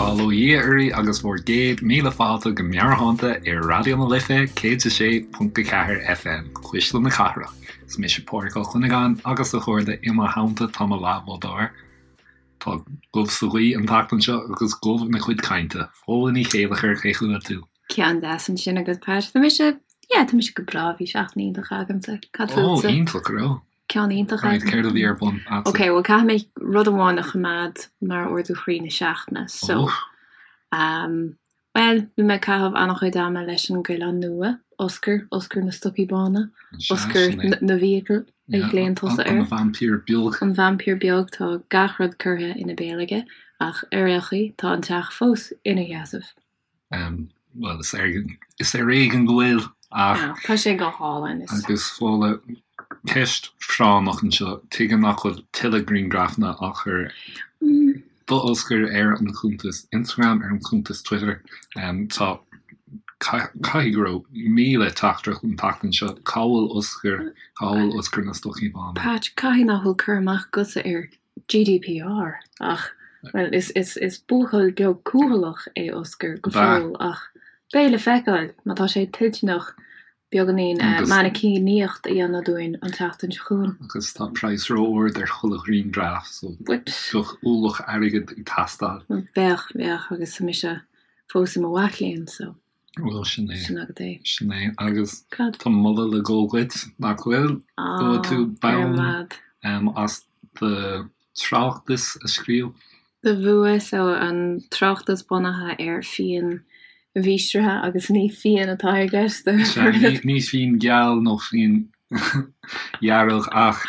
Bail ó Dhia oraibh agus bhur gcéad míle fáilte go Meabhairshláinte ar Raidió na Life 106.4 FM, Cuisle na Cathrach. Is mise Pádraig Ó Cuinneagáin agus a chairde i mo theannta tá mo leathbhádóir. Tá gob sa ghaoth an tseachtain seo agus gob ina cuid cainte. Fódhla Ní Chéilleachair, cén chaoi a bhfuil tú? Ceann deas ansin agat, Pat. Tá mise, yeah, tá mise go breá, bhí seachtain iontach agamsa. Cad fútsa? Ó, iontach, go raibh. Ceann iontach Right, céard a bhí ar bun a'dsa? Ok, bhuel caithfidh mé rud amháin a choimeád mar ardú chroí na seachtaine, so Oh. um, bhuel, bhí mé ag caitheamh an-chuid ama leis an gcoileán nua, Oscar, Oscar na stocaí bána, Sea, Oscar sin é. na bhfiacal a Yeah, ghlaonn tusa an air. vaimpír beag. An vaimpír beag, tá gach rud curtha ina béal aige, ach ar aon chaoi, tá an teach fós ina sheasamh. Bhuel, is is ar éigean go bhfuil, ach. Tá sé go hálainn. Is. Agus Fódhla, ceist phráinneach anseo, tuige nach bhfuil tuilleadh grianghrafanna á chur d'Oscar ar an chuntas Instagram, ar an chuntas Twitter? Tá, caithfidh go raibh 1,000 teachtaireacht an tseachtain seo, cá bhfuil Oscar, cá bhfuil Oscar na stocaí bána? Patch, caithfidh nach bhfuil cur amach agatsa ar GDPR, ach, bhuel, is, is, is buachaill beag cúthaileach é Oscar go fóill ach beidh le feiceáil má tá sé toilteanach beagáinín mainicíníocht a dhéanamh dúinn an tseachtain seo chugainn. Agus tá praghas ró-ard ar chuile ghrianghraf so bheadh ualach airgid ag teastáil. Bheadh, bheadh, agus tá mise fós i mo mhac léinn so. Bhuel, sin é. Sin agat é. Sin é. Agus Cad? tá moladh le dhul dhuit, nach bhfuil? Ah, Gheobhaidh tú ar bonn mad. as do tráchtas a scríobh. Do bhua, so an tráchtas bunaithe ar fíon mhístrithe agus ní fíon atá i gceist. Sea, ní fíon geal nó fíon dhearg ach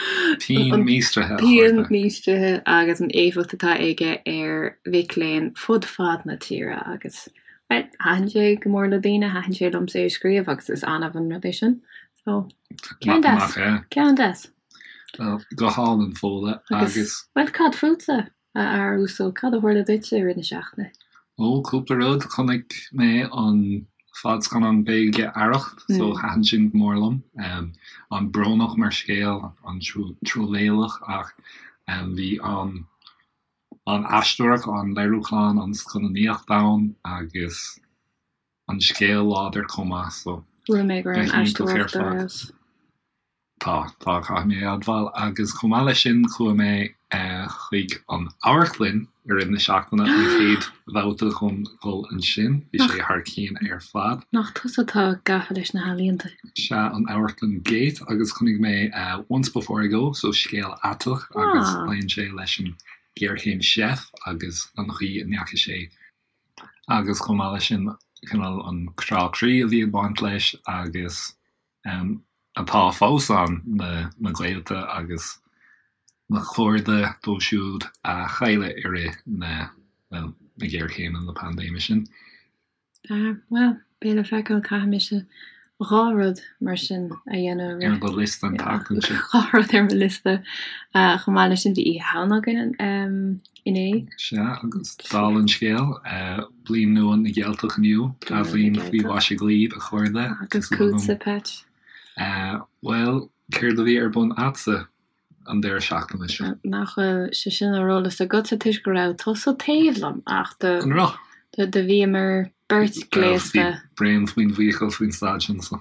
fíon míostraithe, a Fíon chairde. míostraithe agus an éifeacht atá aige ar mhic léinn fud fad na tíre agus Bhuel, thaitin sé go mór le daoine, thaitin sé liomsa é a scríobh agus is annamh an rud é sin. So, ceann deas. Nach ea? Ceann deas. Bhuel, go hálainn, Fódhla, Agus, agus. bhuel, cad fútsa, a fhear uasail, cad a tharla duitse i rith na seachtaine? Ó, cúpla rud. Chonaic mé an fadscannán Gaeilge Arracht, so thaitin sin go mór liom. An-bhrónach mar scéal, an-truamhéalach ach bhí an an aisteoireacht, an léiriúchán, an scannánaíocht ann agus an scéal láidir chomh maith so Chuala mé go raibh go an hiontach ar aisteoireacht ar fad. fheabhas. Tá, tá, caithfidh mé a admháil. Agus chomh maith leis sin chuaigh mé chuig an amharclann i rith na seachtaine, an chéad bhabhta dhom dhul ansin, bhí sé thar cionn ar fad. Nach tusa atá gafa leis na healaíonta? Sea, an amharclann Gate agus chonaic mé Once Before I Go, so scéal aiteach agus pléann sé leis an ghéarchéim seif agus an chaoi a ndeachaigh sé agus chomh maith leis sin cineál an crá croí a bhí ag baint leis agus atá fós ann, na na gaolta agus na cairde dóibh siúd a cailleadh i rith na, bhuel, na géarchéime, na paindéime sin. Ah, bhuel, beidh le feiceáil, caithfidh mise 2 rud mar sin a dhéanamh Ar do liosta an tseachtain seo. 2 rud ar mo liosta. Chomh maith leis sin, bhí Oíche Shamhna againn inné. Sea, agus dála an scéil, Bliain Nua na gCeilteach inniu, Athbhliain faoi mhaise dhaoibh, a chairde. Agus fútsa, Patch? Bhuel, céard a bhí ar bun a'dsa? an deireadh seachtaine seo. Nach bhfuil sé sin ar eolas agatsa toisc go raibh tusa taobh liom ach do An raibh? do bhíomar beirt gléasta. Bhí braon faoin bhfiacail faoin staid sin so.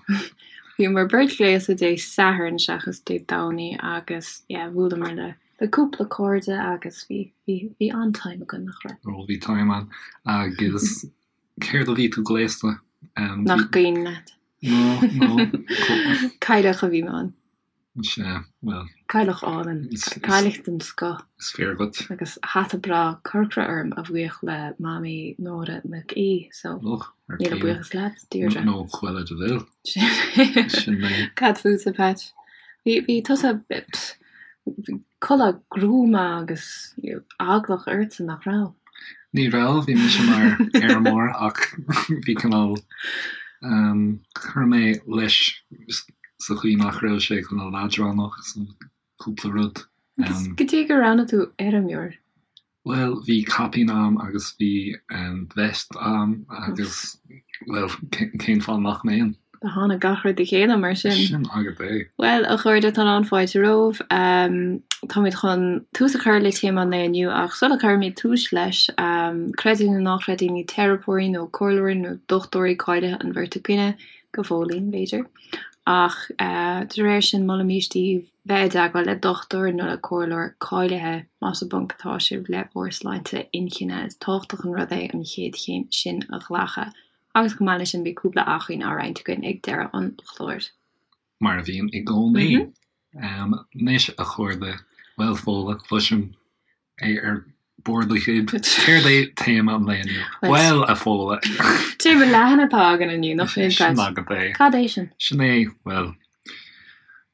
Bhíomar beirt gléasta Dé Sathairn seachas Dé Domhnaigh agus yeah bhuaileamar le le cúpla cairde agus bhí bhí bhí an-time againn nach raibh? Ó bhí time ann agus céard a bhí tú gléasta? Nach cuimhin leat? No no. Cailleach a bhí mé ann. Sea, bhuel. Cailleach álainn. Cailleach den scoth. Is fíor dhuit. Agus hata breá corcra orm a bhuíoch le Mamaí Nóra Nic Aoidh, so Och, ar míle céim. buíochas leat, Deirdre. Nó Cruella de Vil. Sin é. Cad fútsa, Patch? Bhí, bhí tusa, pfft, bhí culaith gruama agus eaglach ortsa, nach raibh? Ní raibh, bhí mise mar fheirmeoir ach bhí cineál, chuir mé leis sa chaoi nach raibh sé cineál leadránach so cúpla rud. Agus goidé gur roghnaigh tú fheirmeoir? Bhuel, bhí caipín a'm agus bhí vest a'm agus, bhuel, cén fáth nach mbeinn? Do tháinig gach rud le chéile mar sin. Sin agat é. Bhuel, a chairde, tá lán fáilte romhaibh. Táimid chun tús a chur le téama an lae inniu ach sula gcuirimid tús leis, creid é nó ná creid é, ní teiripeoirí nó comhairleoirí nó dochtúirí cáilithe an bheirt againne, go fóillín, b'fhéidir, ach de réir sin molaimís daoibh bheith i dteagmháil le dochtúir nó le comhairleoir cáilithe más i bponc atá sibh le bhur sláinte inchinne. Is tábhachtach an rud é an chéad chéim sin a ghlacadh agus chomh maith leis sin beidh cúpla acmhainn á roinnt againn ag deireadh an chláir. Mar a bhíonn i gcónaí. Anois, a chairde, bhuel, Fódhla, cloisim é ar bord do ghoib. Céard é téama an lae inniu? Bhuel, a Fhódhla. Téama leathan atá againn inniu, nach bhfuil, Sin agat é. Cad é sin? Sin é, bhuel,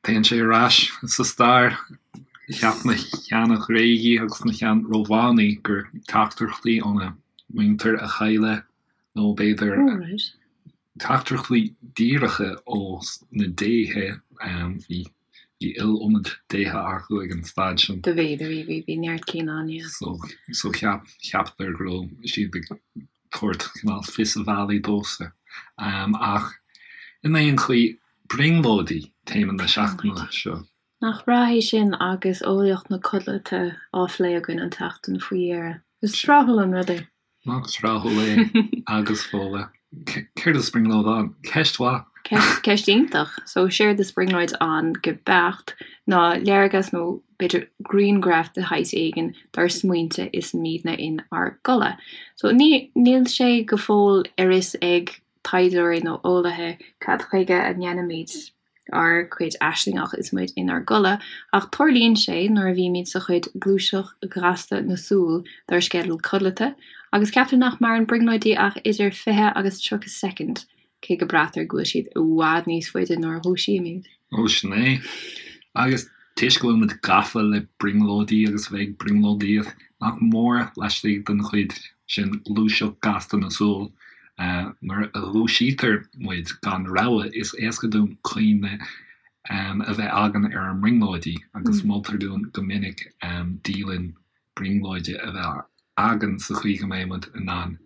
téann sé ar ais sa stair. Cheap na sheana-Ghréagaigh agus na shean-Rómhánaigh gur teachtaireachtaí óna muintir a cailleadh, nó b'fhéidir, Teachtaireachtaí díreacha ó na déithe, bhí iliomad déithe acu ag an staid sin. Do bhí, do bhí, bhí, bhí neart cinn ann, yeah. So, so cheap, cheapadar go raibh siad ag tabhairt cineál fios a bhealaigh dóibhsan. Ach in aon chaoi, brionglóidí téama na seachtaine seo. Nach breá é sin agus eolaíocht na codlata á phlé againn an tseachtain faoi dheireadh. Is tráthúil an rud é. Nach tráthúil é agus Fódhla. Céard is brionglóid ann? Ceist mhaith. Ceist, ceist iontach. So, séard is brionglóid ann go beacht ná léargas nó b'fhéidir grianghraf de shaghas éigin dár smaointe is muidne in ár gcodladh. So, ní, níl sé go fóill ar fhios ag taighdeoirí nó eolaithe cad chuige a ndéanaimid ár gcuid aislingeach is muid inár gcodladh, ach tarlaíonn sé nuair a bhímid sa chuid gluaiseacht ghasta na súl dár sceideal codlata, agus ceaptar nach maireann brionglóidí ach idir 20 agus 30 soicind, cé go braitear go bhfuil siad i bhfad níos faide nuair a dhúisímid. Ó, sin é. Agus toisc go bhfuil muid gafa le brionglóidí agus a bheith ag brionglóidíocht, nach mór laistigh den chuid sin gluaiseacht gasta na súl, Nuair a dhúisítear muid gan rabhadh, is éasca dúinn cuimhne a bheith againn ar ár mbrionglóidí agus moltar dúinn go minic dialann brionglóide a bheith againn sa chaoi go mbeidh muid in ann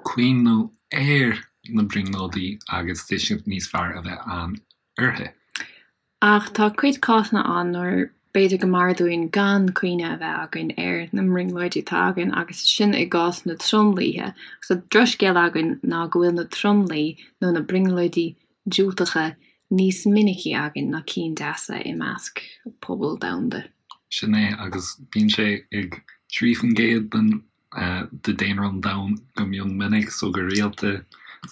cuimhniú ar na brionglóidí agus tuiscint níos fearr a bheith ann uirthi. Ach tá cuid cásanna ann nuair b'fhéidir go mb'fhearr dúinn gan cuimhne a bheith againn ar na mbrionglóidí atá againn agus sin i gcás na tromluithe. Agus an drochscéal againn ná go bhfuil na tromluí nó na brionglóidí diúltacha níos minicí againn ná cinn deasa i measc pobal domhanda. Sin é, agus bíonn sé ag 3% den de daonra an domhain go mion minic, so go rialta,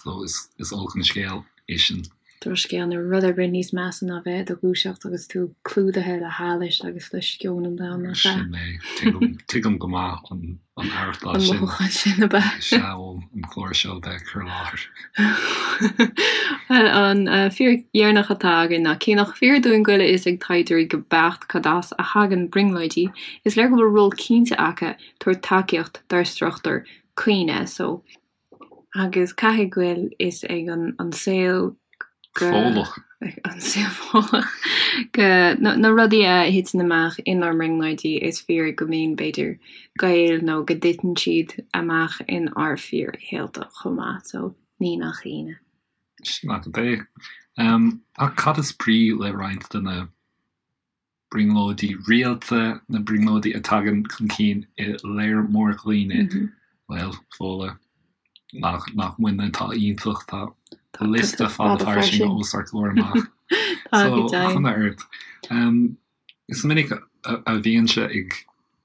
so is is olc an scéal é sin. Drochscéal, níl rud ar bith níos measa ná bheith i do dhúiseacht agus tú clúdaithe le hallais agus le sceon an domhain, nach ea? Sin é. Tuigim, tuigim go maith an an aireachtáil An sin. mothúchán sin, ab ea? Sea, ó an clár seo a bheith ag cur i láthair. Bhuel, an fíric dheireanach atá againn ná cé nach fíor dúinn go bhfuil a fhios ag taighdeoirí go beacht cad as a thagann brionglóidí, is léir go bhfuil ról cinnte acu tabhairt tacaíocht dár struchtúr cuimhne so agus caithfidh go bhfuil fhios ag an an saol go Fódhlach. an saol Fódhlach go na na rudaí a thiteann amach inár mbrionglóidí is fíor go mbíonn b'fhéidir gaol nó go dtiteann siad amach in ár fíorshaolta chomh maith so ní nach ionadh. Sin agat é. Ach cad is brí le roinnt de na brionglóidí rialta, na brionglóidí a tagann chun cinn i léar mór dhaoine, bhuel, Fódhla, nach, nach muidne atá iontach, tá liosta fada fairsing os ár gcomhair amach. So, cuma ort. Is minic a bhímse ag,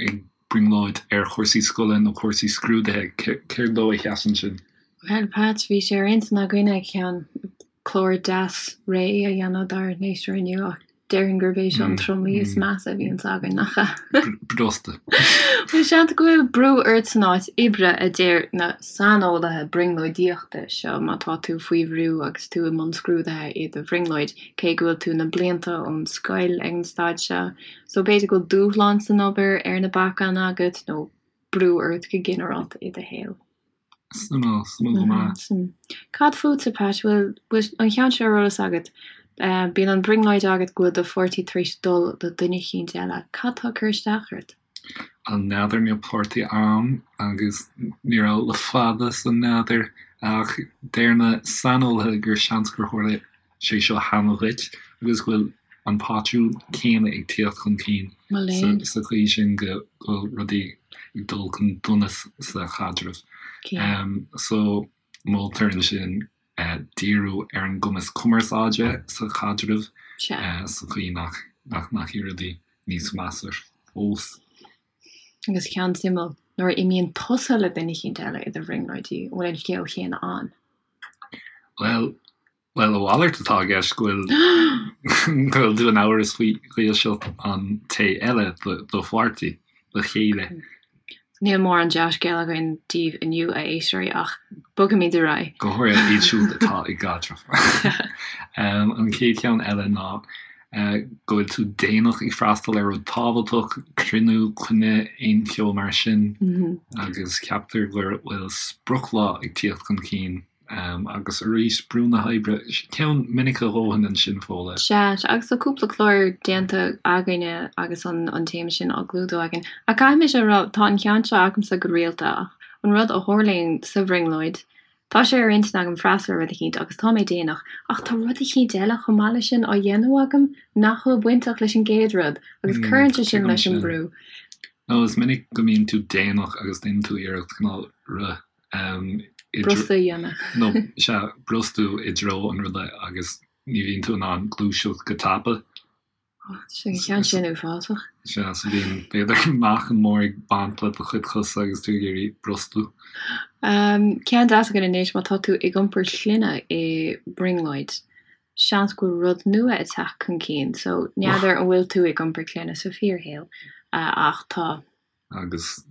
ag brionglóid ar chúrsaí scoile nó cúrsaí scrúdaithe, céard dó a sheasann sin? Bhuel, Pat, bhí sé ar intinn againne ceann clár deas réidh a dhéanamh dár n-éisteoirí inniu ach déarfainn gurb é seo an tromluí is measa a bhíonns againn, nach ea? Brosta. Bhuel, seans go bhfuil brú ort san áit oibre, a deir na saineolaithe brionglóidíochta seo, má tá tú faoi bhrú agus tú i mbun scrúdaithe i do bhrionglóid, cé go bhfuil tú na blianta ón scoil ag an staid seo. So b'fhéidir go bhfuil dúshlán san obair ar na bacáin agat nó brú ort go ginearálta i do shaol. Suimiúil, suimiúil go maith. Cad fútsa, Pat? Bhfuil an ceann seo ar eolas agat? Bíonn an brionglóid agat go bhfuil do pháirtí tar éis dul le duine eicínt eile. Cad tá ag cur isteach ort? N'fheadar, níl páirtí a'm agus ní raibh le fada so n'fheadar ach deir na saineolaithe gur seans gur tharla sé seo cheana dhuit agus go bhfuil an pátrún céanna ag tíocht chun cinn. Sa chaoi sin go bhfuil rudaí ag dul chun donais sa chaidreamh. So moltar ansin díriú ar an gcumas cumarsáide sa chaidreamh sa chaoi nach ndeachaigh rudaí níos measa fós. Agus ceann suimiúil, nuair a imíonn tusa le duine eicínt eile i do bhrionglóidí, an bhfuil an scéal chéanna ann? Bhuel, Bhuel, a mhalairt atá i gceist, go bhfuil go bhfuil tú in amhras faoi dhílseacht an té eile, do pháirtí, do chéile. Níl mórán dea-scéal againn daoibh inniu, a éisteoirí, ach bogfaimid ar aghaidh. Go háirithe iad siúd atá i gcaidreamh. An chéad cheann eile ná go bhfuil tú déanach ag freastal ar rud tábhachtach, cruinniú, coinne, aon cheo mar sin, agus ceaptar go bhfuil sprioclá ag tíocht chun cinn. Agus arís, brú na hoibre, ceann minic a dhóthain ansin, Fódhla. Sea, agus tá cúpla clár déanta againne agus an téama sin á gclúdú againn. Ach caithfidh mise a rá, tá an ceann seo agamsa go rialta ach an rud a tharlaíonn sa bhrionglóid, tá sé ar intinn agam freastal ar rud eicínt agus tá mé déanach, ach tá rud eicínt eile chomh maith leis sin á dhéanamh agam nach bhfuil bainteach leis an gcéad rud agus cuireann sé sin leis an brú. Nó is minic go mbíonn tú déanach agus déanann tú iarracht cineál rith Brostú a dhéanamh. Nó, sea, brostú i dtreo an ruda agus ní bhíonn tú in ann gluaiseacht go tapa. Sin ceann sin uafásach. Sea, so bíonn, b'fhéidir, meáchan mór ag baint le do chuid cosa agus tú ag iarraidh brostú. Ceann deas againn anois, má tá tú ag iompar clainne i mbrionglóid, seans go bhfuil rud nua ag teacht chun cinn. So, n'fheadar an bhfuil tú ag iompar clainne sa fíorshaol, ach tá. Agus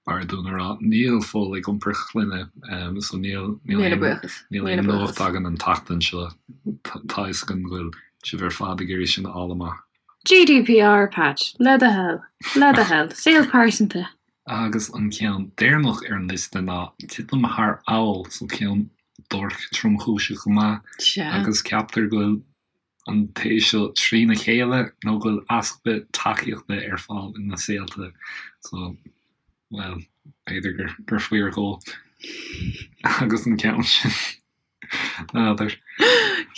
b'fhearr dúinn a rá, níl Fódhla ag iompar clainne, so níl níl aon nuacht againn an tseachtain seo. Tá a fhios againn go bhfuil sibh ar fad ag iarraidh sin a fháil amach. GDPR, Patch, le do thoil, le do thoil, saol pearsanta. Agus an ceann deireanach ar an liosta ná titim thar fheall, so ceann duairc tromchúiseach go maith, agus ceaptar go bhfuil an té seo trína chéile nó go bhfuil easpa tacaíochta ar fáil ina saolta so, bhuel, b'fhéidir gur gur fíor dhó agus an ceann sin, n'fheadar.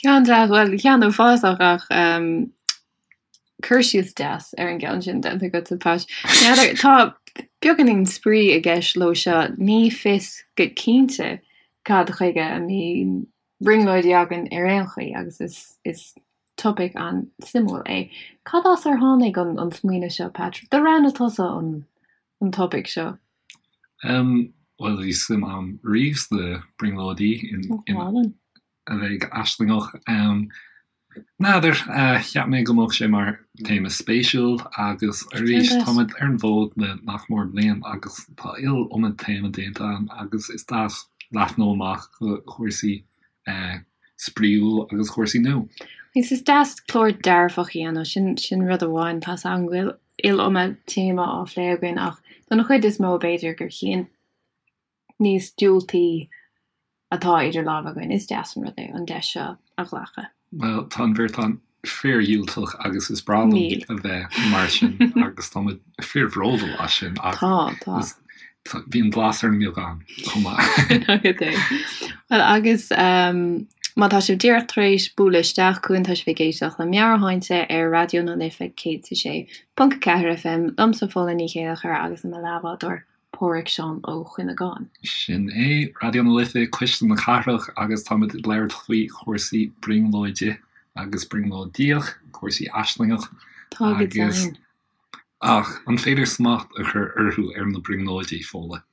Ceann deas, bhuel, ceann uafásach ach ehm, cur síos deas ar an gceann sin déanta agat, a Patch. N'fheadar, tá beagáinín spraoi i gceist leo seo, ní fios go cinnte cad chuige a mbíonn brionglóidí againn ar aon chaoi agus is is topaic an-suimiúil é. Cad as ar tháinig an an smaoineamh seo, Patrick? Do roghnaigh tusa an an topaic seo. Em, bhuel bhí suim a'm riamh sna brionglóidí in in a bheith aislingeach. Em, N'fheadar, cheap mé go mbeadh sé mar théama spéisiúil agus arís táimid ar an bhfód le nach mór bliain agus tá iliomad téama déanta againn agus is deas leathnú amach go chúrsaí spraíúil agus chúrsaí nua. Agus is deas clár dearfach a dhéanamh, sin sin rud amháin, tá's agam go bhfuil iliomad téama á phlé againn ach don chuid is mó b'fhéidir gur chinn níos diúltaí atá idir lámha againn, is deas an rud é an deis seo a ghlacadh. Bhuel, tá an bheirt againn fíordhiúltach agus is breá liom a bheith mar sin agus tá muid fíorbhródúil as sin ach tá, tá. bíonn blas ar an mbeagán chomh maith. Agat é. Bhuel, agus má tá sibh díreach tar éis bualadh isteach chugainn, tá sibh ag éisteacht le Meabhairshláinte ar Raidió na Life 106.4 FM, liomsa Fódhla Ní Chéilleachair agus le mo leathbhádóir Pádhraic Seán Ó Cuinneagáin. Sin é, Raidió na Life, Cuisle na Cathrach agus táimid ag labhairt faoi chúrsaí brionglóide agus brionglóidíoch, cúrsaí aislingeach Tá go deimhin. Ach an féidir smacht a chur orthu ar na brionglóidí, Fódhla?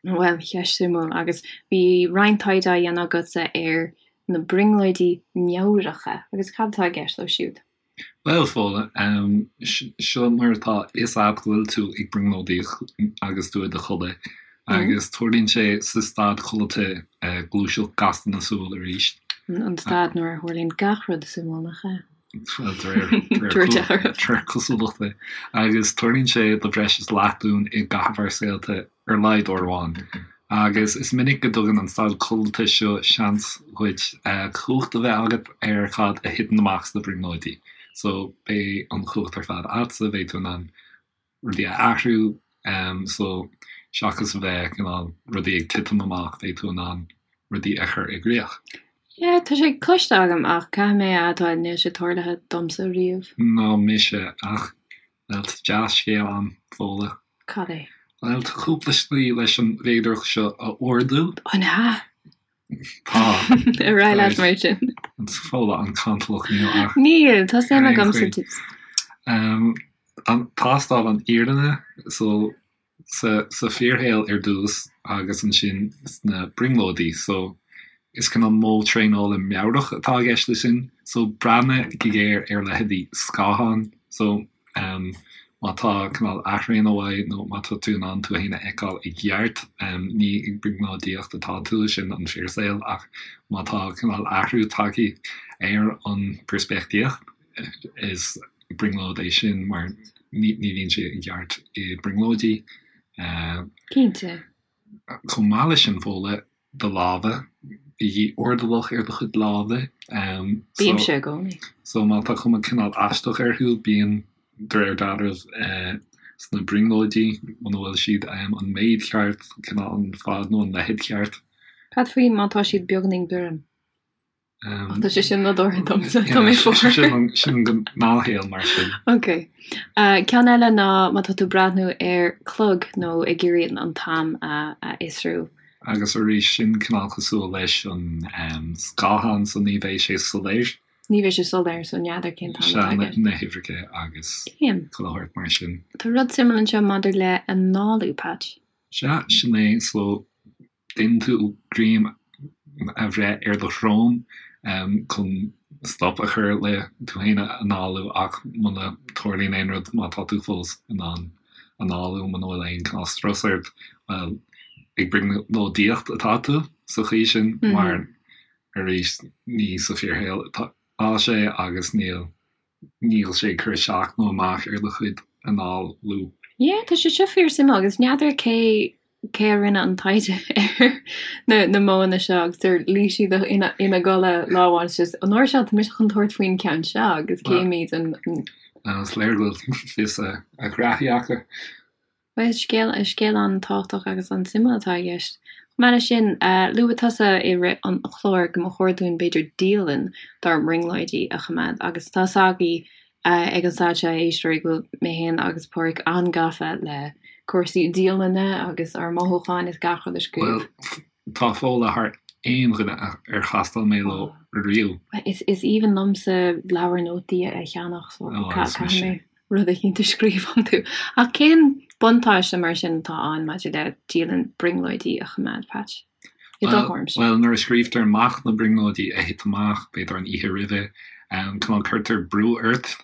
Bhuel, ceist suimiúil agus bhí roinnt taighde á dhéanamh agatsa ar na brionglóidí meabhracha agus cad atá i gceist leo siúd? Bhuel, Fódhla, seo mar atá a fhios a'd go bhfuil tú ag brionglóidíocht agus tú i do chodladh, agus tarlaíonn sé sa staid codlata gluaiseacht gasta na súl arís. An staid nuair a tharlaíonn gach rud suimiúil, nach ea? Bhuel, de réir cosúlachta. Agus tarlaíonn sé do bhreis is leath dúinn i gcaitheamh ár saolta. ar a laghad uair amháin. Agus is minic go dtugann an staid codlata seo seans dhuit cumhacht a bheith agat ar cad a thiteann amach sna brionglóidí. So, beidh an chumhacht ar fad a'dsa, beidh tú in ann rudaí a athrú. So, seachas a bheith cineál rudaí ag titim amach, beidh tú in ann rudaí a chur i gcrích. Yeah, tá sé cloiste agam ach caithfidh mé a admháil níl sé tarlaithe domsa riamh. Ná mise, ach. Bhuel, tá dea-scéal ann, Fódhla. Cad é? Bhuel, tá cúpla slí leis an bhféidearthacht seo a ardú. An ea? Tá. Ar aghaidh leat mar sin. Is Fódhla an-cantalach níl ach. Níl, tá suim agam sa. An tástáil an fhírinne so sa sa fíorshaol ar dtús agus ansin sna brionglóidí so is cineál modh traenála meabhrach atá i gceist leis sin so breathnaigh go géar ar leithéidí scáthán so má tá cineál athraonadh uaidh nó má tá tú in ann tú féin a fheiceáil i gceart ní ag brionglóidíocht atá tú sin an fíorshaol ach má tá cineál athrú tagtha ar an bpeirspictíocht is brionglóid é sin mar ní bhíonn sé i gceart i brionglóidí. Cinnte. Chomh maith leis sin, Fódhla, do lámha, bígí airdeallach ar do chuid lámha. Bímse i gcónaí. So má tá cuma cineál aisteach orthu, bíonn, de réir dealraimh, sna brionglóidí, muna bhfuil siad an méid ceart, cineál an fad nó an leithead ceart. Cad faoi má tá siad beagáinín gorm? Ach tá sé sin nádúrtha domsa, tá mé fuar. Sin an gnáthshaol mar sin. Ok. Ceann eile ná má tá tú ag breathnú ar chlog nó ag iarraidh an t-am a fhiosrú. Agus arís, sin cineál cosúil leis an scáthán so ní bheidh sé soiléir. Ní bheidh sé soiléir so n'fheadar cén t-am atá aige. Sea, na huimhreacha agus chuile shórt mar sin. Tá rud suimiúil anseo maidir le análú, Patch. Sea, sin é. So Déanann tú greim a bhreith ar do shrón chun stop a chur le tú féin a análú ach muna dtarlaíonn aon rud, má tá tú fós in ann análú, muna bhfuil aon cineál strus ort, bhuel, ag brionglóidíocht atá tú sa chaoi sin mar arís ní sa fíorshaol atá sé agus níl Níl sé ag cur isteach nó amach ar do chuid análú. Yeah, tá sé seo fíor suimiúil agus n'fheadar cé cé a rinne an taighde ar na na modhanna seo agus ar luigh siad ina ina gcodladh lá amháin is just an uair seo tá mise chun tabhairt faoin ceann seo agus cífimid an Is léir go bhfuil fios a ngraithí acu. Bhuel, is scéal, is scéal an-tábhachtach agus an-suimiúil atá i gceist. Chomh maith leis sin, luaigh tusa i rith an chláir go mba chóir dúinn b'fhéidir dialann dár mbrionglóidí a choimeád agus tá 'fhios agaibh ag an staid seo, a éisteoirí, go bhfuil mé féin agus Pádraig an-gafa le cúrsaí dialainne agus ár mothúcháin is gach rud a scríobh. Bhuel, tá Fódhla thar aon dhuine ar chastáil mé leo riamh. Is aoibhinn liomsa leabhar nótaí a cheannach so caithfidh mé rud eicínt a scríobh iontu. Ach cén buntáiste mar sin atá ann maidir le dialann brionglóidí a choimeád, Patch? I do thuairimse. Bhuel, nuair a scríobhtar amach na brionglóidí a thit amach, b'fhéidir an oíche roimhe, cineál cuirtear brú ort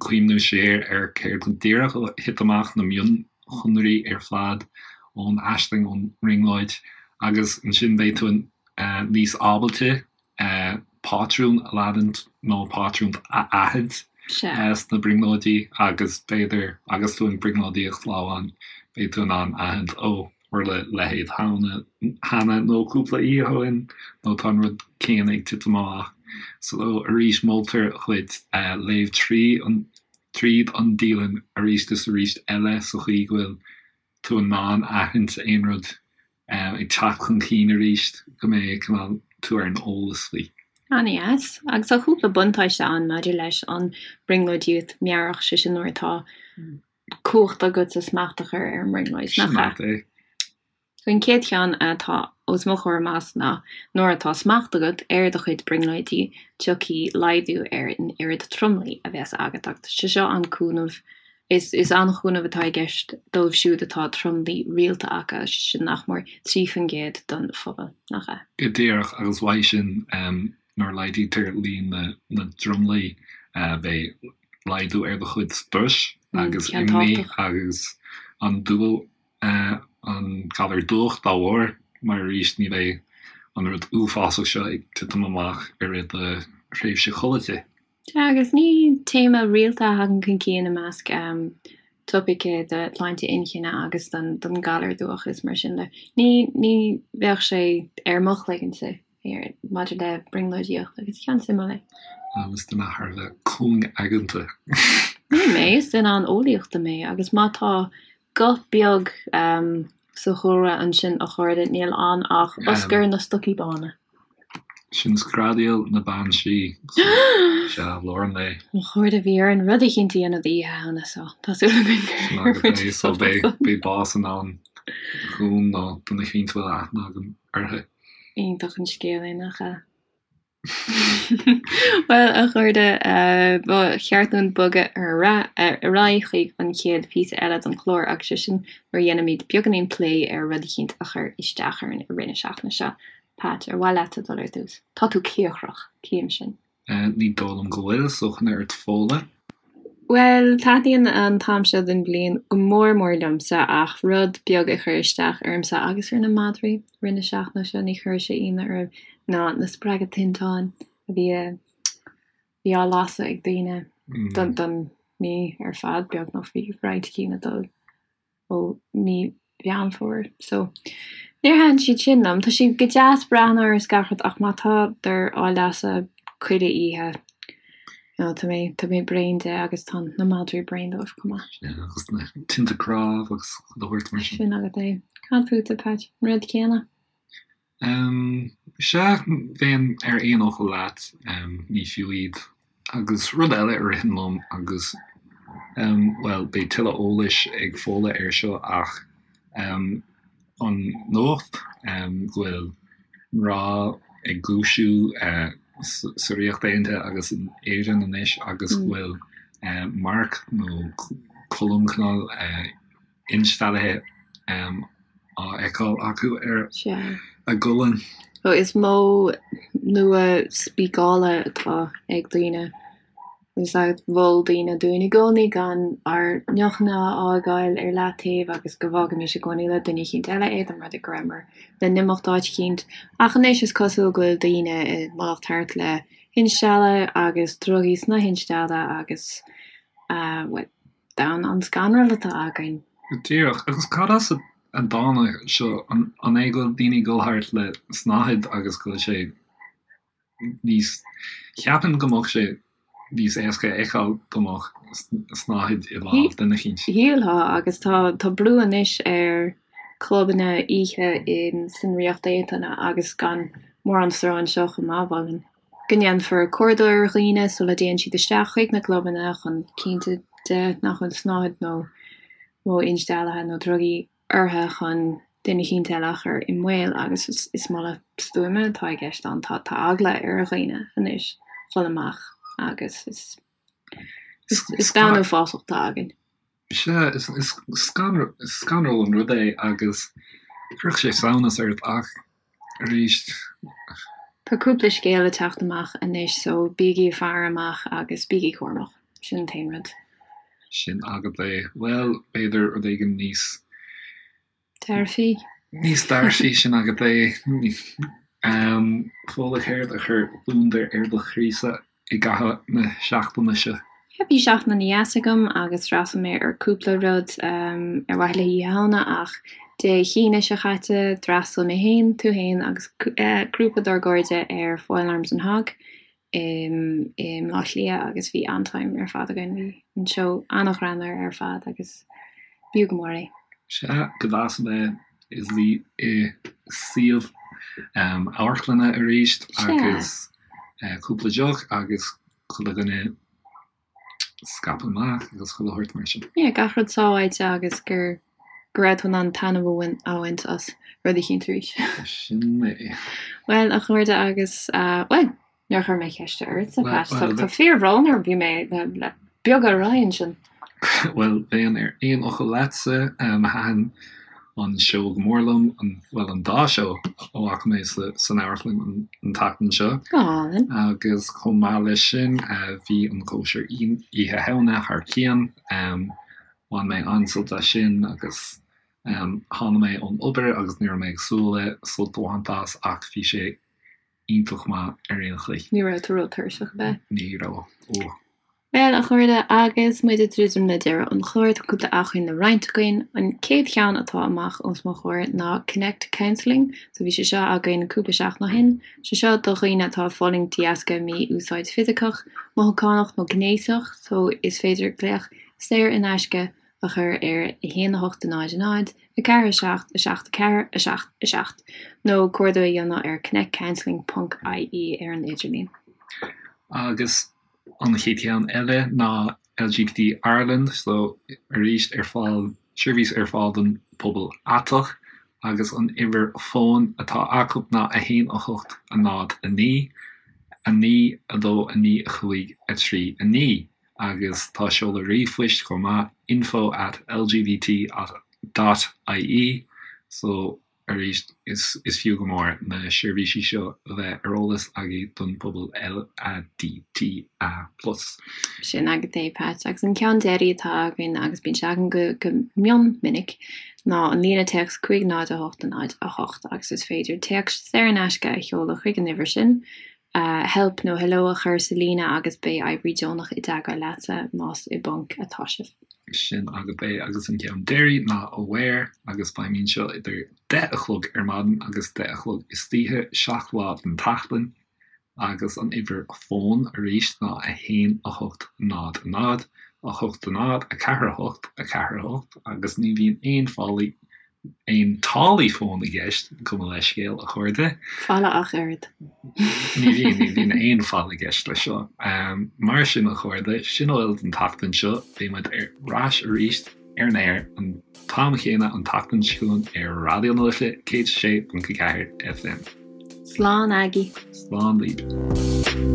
cuimhniú siar ar céard go díreach a thit amach, na mionshonraí ar fad ón aisling, ón mbrionglóid, agus ansin beidh tú níos ábalta pátrún a leanúint nó pátrún a aithint sna brionglóidí agus b'fhéidir agus tú ag brionglóidíocht lá amháin beidh tú in ann aithint ó tharla a leithéid cheana nó cúpla oíche ó shin nó tá an rud céanna ag titim amach. So arís moltar dhuit léamh trí an tríd an dialann arís is arís eile sa chaoi go bhfuil tú in ann aithint aon rud ag teacht chun cinn arís, go mbeidh cineál tú ar an eolas faoi. An-dheas. Agus tá cúpla buntáiste ann maidir leis an brionglóidíocht meabhrach, sé sin nuair atá cumhacht agatsa smacht a chur ar an mbrionglóid, nach ea? Sin é. An chéad cheann atá os mo chomhair amach ná nuair atá smacht agat ar do chuid brionglóidí, tiocfaidh laghdú ar an oiread tromluí a bheas agat agus tá sé seo an-cúnamh Is an-chúnamh atá i gceist dóibh siúd atá tromluí rialta acu, sin nach mór 3% den phobal, nach ea? Go díreach, agus uaidh sin, nuair a laghdaítear líon na dtromluí, beidh laghdú ar do chuid struis agus imní agus an dúil an galar dubhach dá bharr, mar arís ní bheidh an rud uafásach seo ag titim amach i rith do thréimhse chodlata. Sea, agus ní téama rialta a thagann chun cinn i measc topaice de shláinte inchinne agus don galar dubhach is mar sin de. Ní ní bheadh sé ar mo chloigeannsa maidir le brionglóidíocht agus ceann suimiúil é. Is duine thar a bheith cúng-aigeanta. Ní mé, is duine an-eolaíochta mé agus má tá guth beag sa chúlra ansin a chairde, níl ann ach Oscar na Stocaí Bána. Sin Screadaíl na Bean Sí, sea, lár an lae. Mo chairde, bhí orainn rud eicínt a dhéanamh d'Oíche Shamhna so tá súil againn gur bhain sibh sult as. Beidh bás i ndán dhúinn nó duine eicínt a bhfuil aithne agam uirthi. Iontach an scéal é, nach ea? Bhuel, a chairde, ba cheart dúinn bogadh ar aghaidh chuig an chéad phíosa eile den chlár agus sé sin nuair a dhéanfaimid beagáinín plé ar rud eicínt a chuir isteach orainn i rith na seachtaine seo. Pat, ar mhaith leatsa dul ar dtús? Tá tú cíocrach, tchím sin. Ní dóigh liom go bhfuil, so coinnigh ort Fódhla. Bhuel, taitníonn an t-am seo den bhliain go mór mór liomsa ach rud beag a chuir isteach ormsa agus ar na madraí i rith na seachtaine seo, ní chuirfidh sé ionadh oraibh, ná na spreagadh tinteáin a bhí a bhí á lasadh ag daoine don don mí ar fad beagnach, bhí roinnt cinn ag dul. ó mí Mheán Fómhair. So, níor thaitin siad sin liom. Tá siad go deas breathnú orthu is gach rud ach má tádar á lasadh chuile oíche, you know, tá mé, tá mé bréan de agus tá na madraí bréan dóibh chomh maith. Yeah, agus na tinte cnámh agus chuile shórt mar sin. Sin agat é. Cad fútsa, Pat? An rud céanna? Sea, bheinn ar aon fhocal leat, ní fiú iad. Agus rud eile a ritheann liom agus, bhuel, beidh tuilleadh eolais ag Fódhla air seo ach an nuacht go bhfuil mná ag dúisiú sa Ríocht Aontaithe agus in Éirinn anois agus go bhfuil marc nó colm cineál insteallaithe á fheiceáil acu ar a gcolainn. So is modh nua spíceála atá ag daoine. Agus mhol daoine dúinn i gcónaí gan ár ndeochanna a fhágáil ar leataobh agus go bhfágaimis i gcónaí le duine eicínt eile é, dá mba rud é go rabhamar le n-imeacht áit eicínt. Ach anois is cosúil go bhfuil daoine ag imeacht thart le hinstealladh agus drugaí sna hinstealladh agus, bhuel, Domhan an-scanrúil atá againn. Díreach. Agus cad as a dtáinig seo? An é go bhfuil daoine ag dul thart le snáthaid agus go bhfuil sé níos, cheapfainn go mbeadh sé níos éasca a fheiceáil dá mbeadh snáthaid i lámh duine eicínt. Shílfeá, agus tá tá brú anois ar clubanna oíche in san Ríocht Aontaithe agus gan mórán stró anseo chomh maith, mholfainn. go ndéanfar cuardach ar dhaoine sula dtéann siad isteach chuig na clubanna chun cinntiú de nach bhfuil snáthaid nó modh insteallaithe nó drugaí orthu chun duine eicínt eile a chur i mbaol agus is moladh stuama atá i gceist ann. Tá eagla ar dhaoine anois dhul amach agus is is domhan uafásach atá againn. Sea, is scanrúil an rud é agus chuirfeadh sé samhnas ort ach arís. Tá cúpla scéal ag teacht amach anois so bígí ag faire amach agus bígí cúramach. Sin an t-aon rud. Sin agat é. Bhuel, b'fhéidir rud éigin níos. Dearfaí. Níos dearfaí, sin agat é. Fódhla, céard a chuir gliondar ar do chroísa i gcaitheamh na seachtaine seo? Bhí seachtain ana-dheas agam agus d'fhreastail mé ar cúpla rud ar mhaithe le hOíche Shamhna ach Dé hAoine seo chaite d'fhreastail mé féin, tú féin agus grúpa dár gcairde ar Foil Arms and Hog i mBleá Cliath agus bhí an-time ar fad againn. Bhí an seó an-ghreannmhar ar fad agus b'fhiú go mór é. Sea, go deas a bheith i luí i suíomh amharclainne arís agus cúpla deoch agus chuile dhuine scaipthe amach agus chuile shórt mar sin. Yeah, gach rud sábháilte agus gur go raibh tú in ann taitneamh a bhaint as rud eicínt arís. Sin é. Bhuel, a chairde agus, bhuel, níor chuir mé ceist ortsa, Pat. Tá fíorbhrón orm, bhí mé le beag ar aghaidh ansin. Bhuel, bheinn ar aon fhocal leatsa. Thaitin an seó go mór liom, bhuel, an dá seó a bhfaca mé san amharclann an tseachtain seo. Go hálainn. Agus chomh maith leis sin, bhí an cóisir Oíche Shamhna thar cionn. Bhain mé an-sult as sin agus tháinig mé ón obair agus ní raibh mé ag súil le sult a bhaint as ach bhí sé iontach maith ar aon chaoi. Ní raibh tú ró-tuirseach, ab ea? Ní raibh. Ó. Bhuel, a chairde, agus muid ag druidim le deireadh an chláir, tá cúpla acmhainn le roinnt againn. An chéad cheann atá amach os mo chomhair ná Connect Counselling. So bhí sé seo againn cúpla seachtain ó shin. Sé seo do dhaoine atá ag fulaingt de dheasca mí-úsáid fisiceach, mothúchánach nó gnéasach. So is féidir glaoch saor in aisce. a chur ar 1 8 0 0 4 7 7 4 7 7 nó cuardach a dhéanamh ar connectcounselling ponc ie ar an idirlíon. Agus an chéad cheann eile ná LGBT Ireland, so arís ar fáil, seirbhís ar fáil don pobal aiteach agus an uimhir fóin atá acu ná 1 8 0 9 9 2 9 5 3 9 agus tá seoladh ríomhphoist chomh maith, info at lgbt dot ie so arís is fiú go mór na seirbhísí seo a bheith ar eolas agaibh don phobal LADTA plus. Sin agat é, Pat. Agus an ceann deiridh atá againn, agus bíonn sé againn go go mion minic, ná an líne téacs 5 0 8 0 8 agus is féidir téacs saor in aisce a sheoladh chuig an uimhir sin, help nó hello a chur sa líne agus beidh oibrí deonach i dteagmháil leatsa más i bponc atá sibh. Sin agat é agus an ceann deiridh ná Aware agus feidhmíonn seo idir 10 a chlog ar maidin agus 10 a chlog istoíche, 7 lá den tseachtain agus an uimhir fóin arís ná 1 8 0 0 8 0 4 8 4 8 agus ní bhíonn aon fálaí aon táillí fóin i gceist, gabh mo leithscéal, a chairde. Falla ach oiread. Ní bhíonn, ní bhíonn aon falla i gceist leis seo. Mar sin, a chairde, sin a bhfuil don tseachtain seo. Beidh muid ar ais arís ar an aer an t-am chéanna an tseachtain seo chugainn ar Raidió na Life 106.4 FM. Slán agaibh. Slán libh.